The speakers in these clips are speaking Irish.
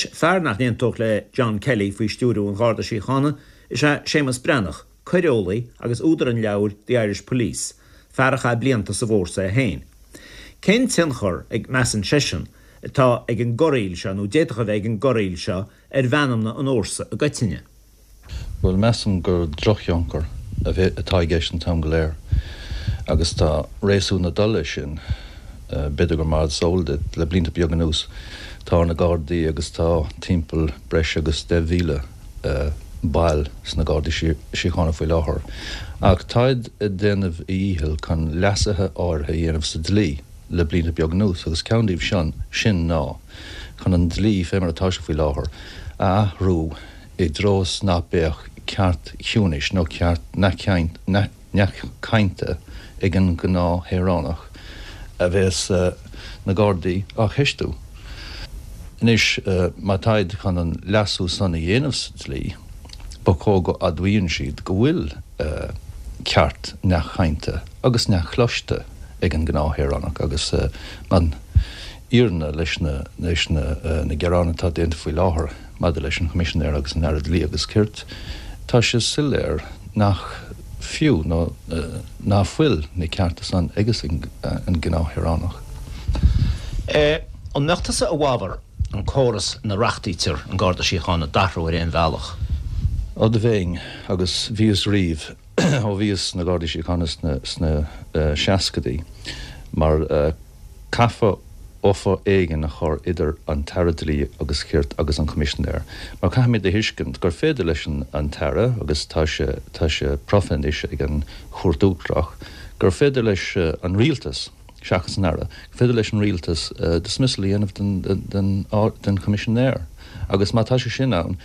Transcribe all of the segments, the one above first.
Anois, fear nach n-aontódh le John Kelly faoi stiúiriú an Gharda Síochána is ea Séamus Breathnach, coireolaí agus údar an leabhair The Irish Police, fear a chaith blianta sa bhfórsa é féin. Cén tionchar a measann seisean atá ag an gcorraíl seo, nó d'fhéadfadh a bheith ag an gcorraíl seo, ar mheanmna an fhórsa i gcoitinne? Bhuel, measaim gur drochthionchar atá i gceist an t-am go léir agus tá réasún ag dul leis sin. B'fhéidir gur mar is eol duit, le blianta beaga anuas tá na Gardaí agus tá timpeall breis agus 10,000 ball sna Gardaí Síochána faoi láthair. Ach táid ag déanamh a dhícheall chun leasuithe áirithe a dhéanamh sa dlí le blianta beaga anuas agus ceann díobh sin ná chun an dlí, fé mar atá sé faoi láthair, a athrú i dtreo is ná beadh ceart ciúnais nó ceart neamhchainte ag an ngnáthshaoránach a bheas na Gardaí á cheistiú. Anois, má táid chun an leasú san a dhéanamh sa dlí, ba chóir go admhaíonn siad go bhfuil ceart neamhchainte agus neamhchloiste ag an ngnáthshaoránach agus an fhírinne leis na gearáin atá déanta faoi láthair maidir leis an Choimisinéir agus an Aire Dlí agus Cirt, tá sé soiléir nach fiú nó ná fuil na cearta san ages an gnáthshaoránach. An mbeadh tusa i bhfabhar an córas ina reachtaítear an Garda Síochána d'athrú ar aon bhealach? Ó do bheinn, agus bhíos riamh ó bhíos sna Gardaí Síochána sna seascaidí, mar Caithfear buffer éigin a chur idir an tAire Dlí agus Cirt agus an Coimisinéir, mar caithfimid a thuiscint gur féidir leis an tAire, agus tá sé tá sé profa anois ag an Chúirt Uachtarach, gur féidir leis an Rialtas, seachas an Aire, gur féidir leis an Rialtas dismissal a dhéanamh den den den Choimisinéir. Agus má tá sé sin ann,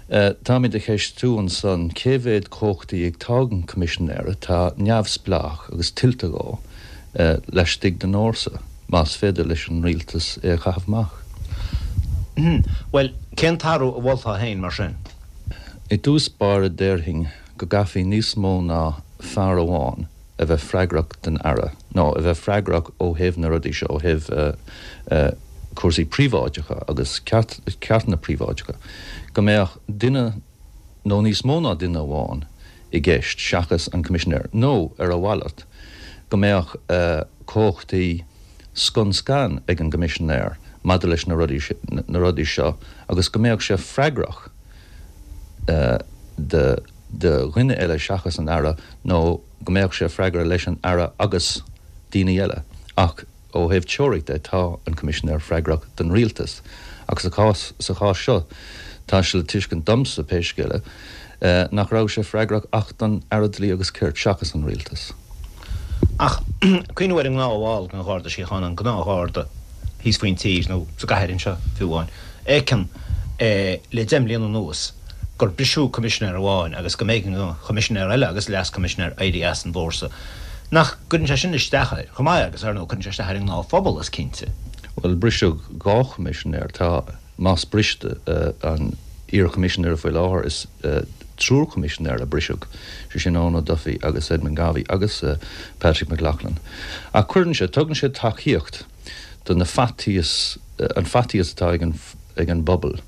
táimid a cheistiú ansan cé mhéad cumhachtaí atá ag an Choimisinéir atá neamhspleách agus tuillte dhó. laistigh den fhórsa, más féidir leis an rialtas é a chaitheamh amach. Bhuel, cén t-athrú a mholfá féin, mar sin? I dtús báire déarfainn go gcaithfí níos mó ná fear amháin a bheith freagrach don Aire, nó a bheith freagrach ó thaobh na rudaí seo, ó thaobh cúrsaí príobháideacha agus ceartanna príobháideacha, go mbeadh duine nó níos mó ná duine amháin i gceist seachas an Coimisinéir, nó ar a mhalairt, go mbeadh cumhachtaí scun scan ag an gCoimisinéir maidir leis na na rudaí seo agus go mbeadh sé freagrach do dhuine eile seachas an Aire nó go mbeadh sé freagrach leis an Aire agus daoine eile ach Ó thaobh teoiric de, tá an Coimisinéir freagrach don Rialtas, ach sa chás sa chás seo, tá sé le tuiscint domsa, pé scéal é, nach raibh sé freagrach ach don Aire Dlí agus Cirt, seachas an Rialtas. Ach cuimhniú ar an ngnáthbhall den Gharda Síochána, an gnáthgharda thíos faoin tír, nó sa gcathair anseo fiú amháin, fheiceann le deich mbliana anuas gur briseadh Coimisinéir amháin agus go mb'éigean don Choimisinéir eile agus Leas-Choimisinéir éirí as an bhfórsa. Nach gcuireann sé sin isteach air chomh maith agus, ar ndóigh, cuireann sé isteach ar an ngnáthphobal, is cinnte. Bhuel, briseadh dhá Choimisinéir. Tá, más briste an iar-Choimisinéir faoi láthair, is triúr Coimisinéir a briseadh, sé sin Eoin O'Duffy agus Edmund Garvey agus Patrick McLoughlin. Ach cuireann sé, tugann sé tacaíocht do na faitíos, an faitíos atá ag an, ag an bpobal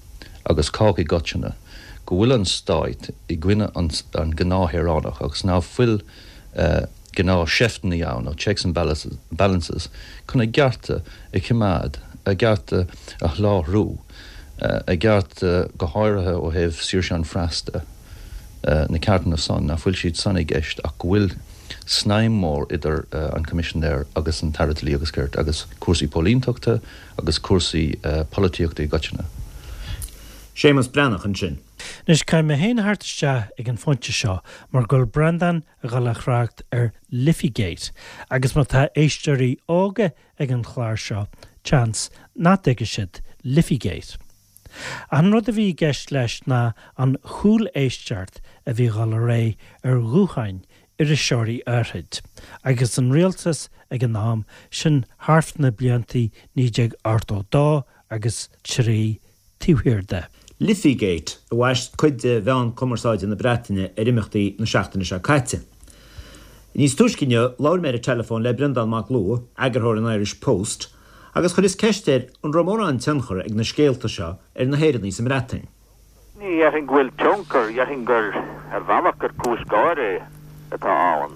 agus cách i gcoitinne go bhfuil an Stát i gcoinne an gnáthshaoránach agus ná fuil gnáth-sheifteanna ann, nó checks and balances, chun a gcearta a choimeád, a gcearta a sholáthrú, a gcearta go háirithe ó thaobh saoirse an phreas de, na ceartanna san, ná fuil siad san i gceist ach go bhfuil snaidhm mhór idir an Coimisinéir agus an tAire Dlí agus Cirt agus cúrsaí póilíntachta agus cúrsaí polaitíochta i gcoitinne. Séamus Breathnach ansin. Anois, caithfidh mé féin a theacht isteach ag an phointe seo mar go bhfuil Breandán ag dul a thrácht ar Liffeygate agus má tá éisteoirí óga ag an chlár seo, seans nach dtuigfidh siad Liffeygate. Ach an rud a bhí i gceist leis ná an chúléisteacht a bhí ag dul ar aghaidh ar ghutháin iriseoirí áithrid agus an rialtas ag an am sin thart na blianta 1982 agus 3 taobh thiar de. Liffeygate a bhaist cuid de mheáin cumarsáide na Breataine ar imeachtaí na seachtaine seo caite. Níos túisce inniu, labhair mé ar an teileafón le Breandán Mac Lugha, eagarthóir an Irish Post, Agus chuireas ceist air an raibh mórán tionchar ag na scéalta seo ar na hÉireannaigh sa mBreatain. Ní dhéarfainn go bhfuil tionchar, dhéarfainn gur, ar bhealach, gur cúis gáire atá ann.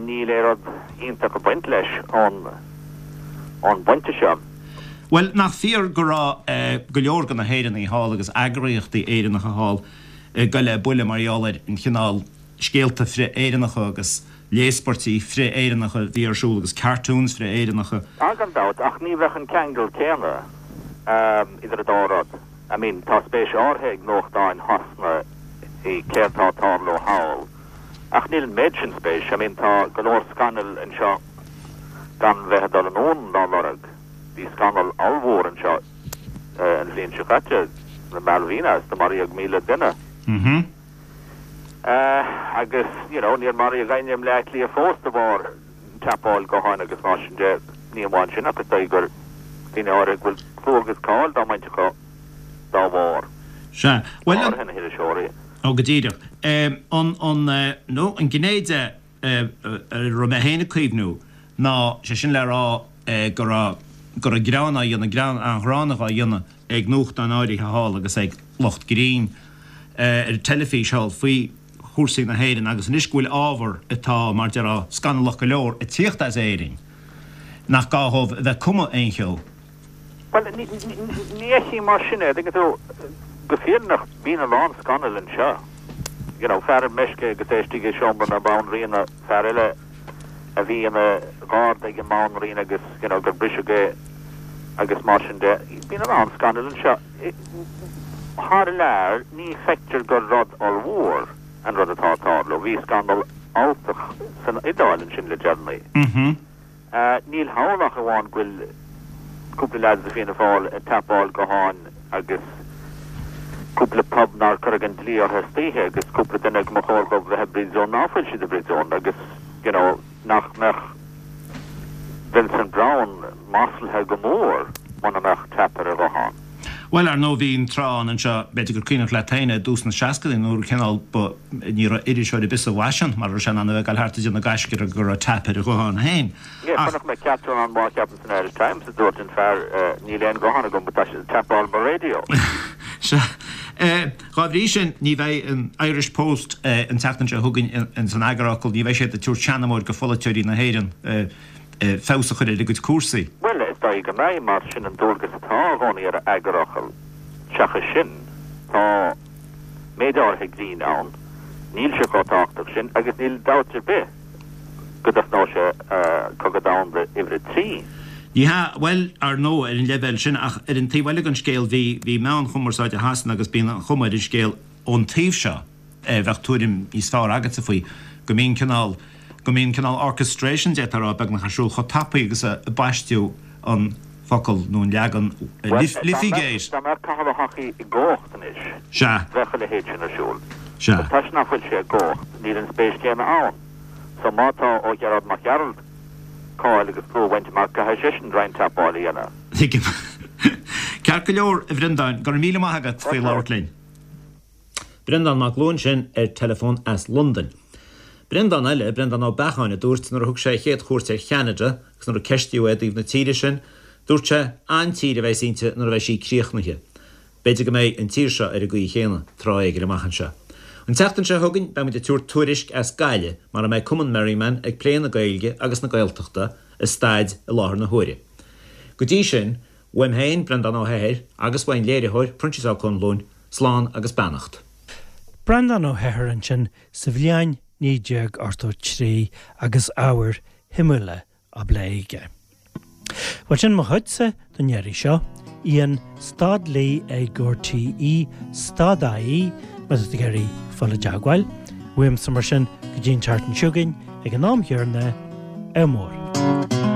Níl aon rud iontach ag baint leis ón bpointe seo. Bhuel, nach fíor go raibh go leor de na hÉireannaigh thall agus eagraíochtaí Éireannacha thall ag goil le buille mar gheall ar an chineál scéalta frith-Éireannacha agus léaspairtí frith-Éireannacha a bhí ar siúl agus cartoons frith-Éireannacha. Ah, gan dabht, ach ní bheadh an ceangal céanna idir an dá rud. I mean, tá spéis áirithe ag nuachtáin Shasana i céard tá ag tarlú thall, ach níl an méid sin spéis. I mean, tá go leor scannail anseo gan bheith ag dul anonn dá lorg. Bhí scannal ollmhór anseo an bhliain seo caite, na Malvinas, do maraíodh 1,000 duine. Agus, you know, níor maraíodh éinne i mBleá Cliath fós de bharr teapáil gutháin agus mar sin de. Ní amháin sin ach is dóigh gur daoine áirithe go bhfuil clú agus cáil dá mbaint acu dá bharr. Sea. Bhuel, an. Go háirithe na hiriseoirí. Ó, go díreach. An, an, nó an gné de a raibh mé féin ag cuimhniú ná, sé sin le rá go raibh, go raibh greann á dhéanamh, greann an-ghránna á dhéanamh ag nuachtáin áirithe thall agus ag lucht grinn ar an teilifís thall faoi chúrsaí na hÉireann agus anois go bhfuil ábhar atá, mar déarfá, scannalach go leor ag tíocht as Éirinn, nach gá dhóibh a bheith ag cumadh aon cheo. Bhuel, ní fheicim mar sin é, tuigeann tú, go fírinneach, bíonn a lán scannal anseo. You know, fear ar meisce agus é istigh i seomra na banríona, fear eile a bhí ina gharda ag an mbanríon agus, you know, gur briseadh é agus mar sin de. Bíonn a lán scannal anseo. Thar lear, ní feictear gur rud ollmhór an rud atá ag tarlú. Bhí scannal alltach san Iodáil ansin le deireanaí. Níl thall ach amháin go bhfuil cúpla leaids de Fianna Fáil ag teapáil gutháin agus cúpla pub nár cuireadh an dlí orthu istoíche agus cúpla duine go mba chóir dhóibh bheith i bpríosún ná fuil siad i bpríosún agus you know nach mbeadh Vincent Browne maslaithe go mór muna mbeadh tap ar a ghuthán. Bhuel, ar ndóigh, bhí an tráth ann anseo, b'fhéidir gur cuimhneach leat féin é, i dtús na seascadaí nuair cineál ba, ní raibh iriseoir ar bith sa bhfaisean mar a raibh sé in ann a bheith ag dul thart ag déanamh gaisce go raibh tap ar a ghuthán féin. Yeah, Ach. chonaic mé cartoon an-mhaith ceapaim san Irish Times a dúirt an fear, níl aon ghuthán agam but tá siad ag tapáil mo radio. Sea. Dhá bhrí sin, ní bheidh an Irish Post an tseachtain seo chugainn ins an eagarfhocal, ní bheidh siad ag tabhairt seanamóir go pholaiteoirí na hÉireann. feabhas a chur ar a gcuid cúrsaí. Bhuel, is dóigh go mbeidh, mar sin an dualgas atá i gcónaí ar eagarfhocal. Seachas sin, tá méid áirithe grinn ann, níl sé chomh tábhachtach sin, agus níl dabht ar bith go dtosnóidh sé Cogadh Domhanda uimhir a 3. Ní hea, bhuel, ar ndóigh, ar an leibhéal sin, ach ar an taobh eile den scéal, bhí, bhí meáin chumarsáide Shasana agus bíonn an chuma ar an scéal ón taobh seo, bheadh tuairim níos fearr agatsa faoi, go mbíonn cineál, go mbíonn cineál orchestration, d'fhéadfá a rá, beagnach ar siúl chomh tapaidh agus a baisteadh an focal nó an leagan Liffeygate. Dá mbeadh Cathal Ó hEochaidh i gcumhacht anois, Sea. bheadh a leithéid sin ar siúl. Sea. But toisc nach bhfuil sé i gcumhacht, níl an spéis chéanna ann. So má tá ó Ghearóid Mac Gearailt cáil agus clú a bhaint amach, caithfidh seisean roinnt tapáil a dhéanamh. Tuigim. Ceart go leor, a Bhreandáin, go raibh míle maith agat faoi labhairt linn. Breandán Mac Luain sin ar teileafón as Londain. Breandán eile, Breandán Ó Beacháin, a dúirt nuair a thug sé a chéad chuairt ar Cheanada agus nuair a ceistíodh é i dtaobh na tíre sin, dúirt sé, An-tír a bheas inti nuair a bheidh sí críochnaithe. B'fhéidir go mbeidh an tír seo ar an gcaoi chéanna tráth éigin amach anseo. An tseachtain seo chugainn beidh muid ag tabhairt tuairisc as Gaillimh mar a mbeidh Cumann Merriman ag plé na Gaeilge agus na Gaeltachta, a staid i láthair na huaire. Go dtí sin, Uaim féin, Breandán Ó hEithir, agus uaidh an léiritheoir, Proinsias Ó Conluain, slán agus beannacht. Breandán Ó hEithir ansin sa bhliain 1983 agus ábhair shuimiúla á bplé aige. Bhuel sin mo chuidse don iarraidh seo. Ian stad Lee ag RTÉ stad IE má tá tú ag iarraidh fáil i dteagmháil. Uaimse mar sin go dtí an tseachtain seo chugainn ag an am chéanna, ádh mór.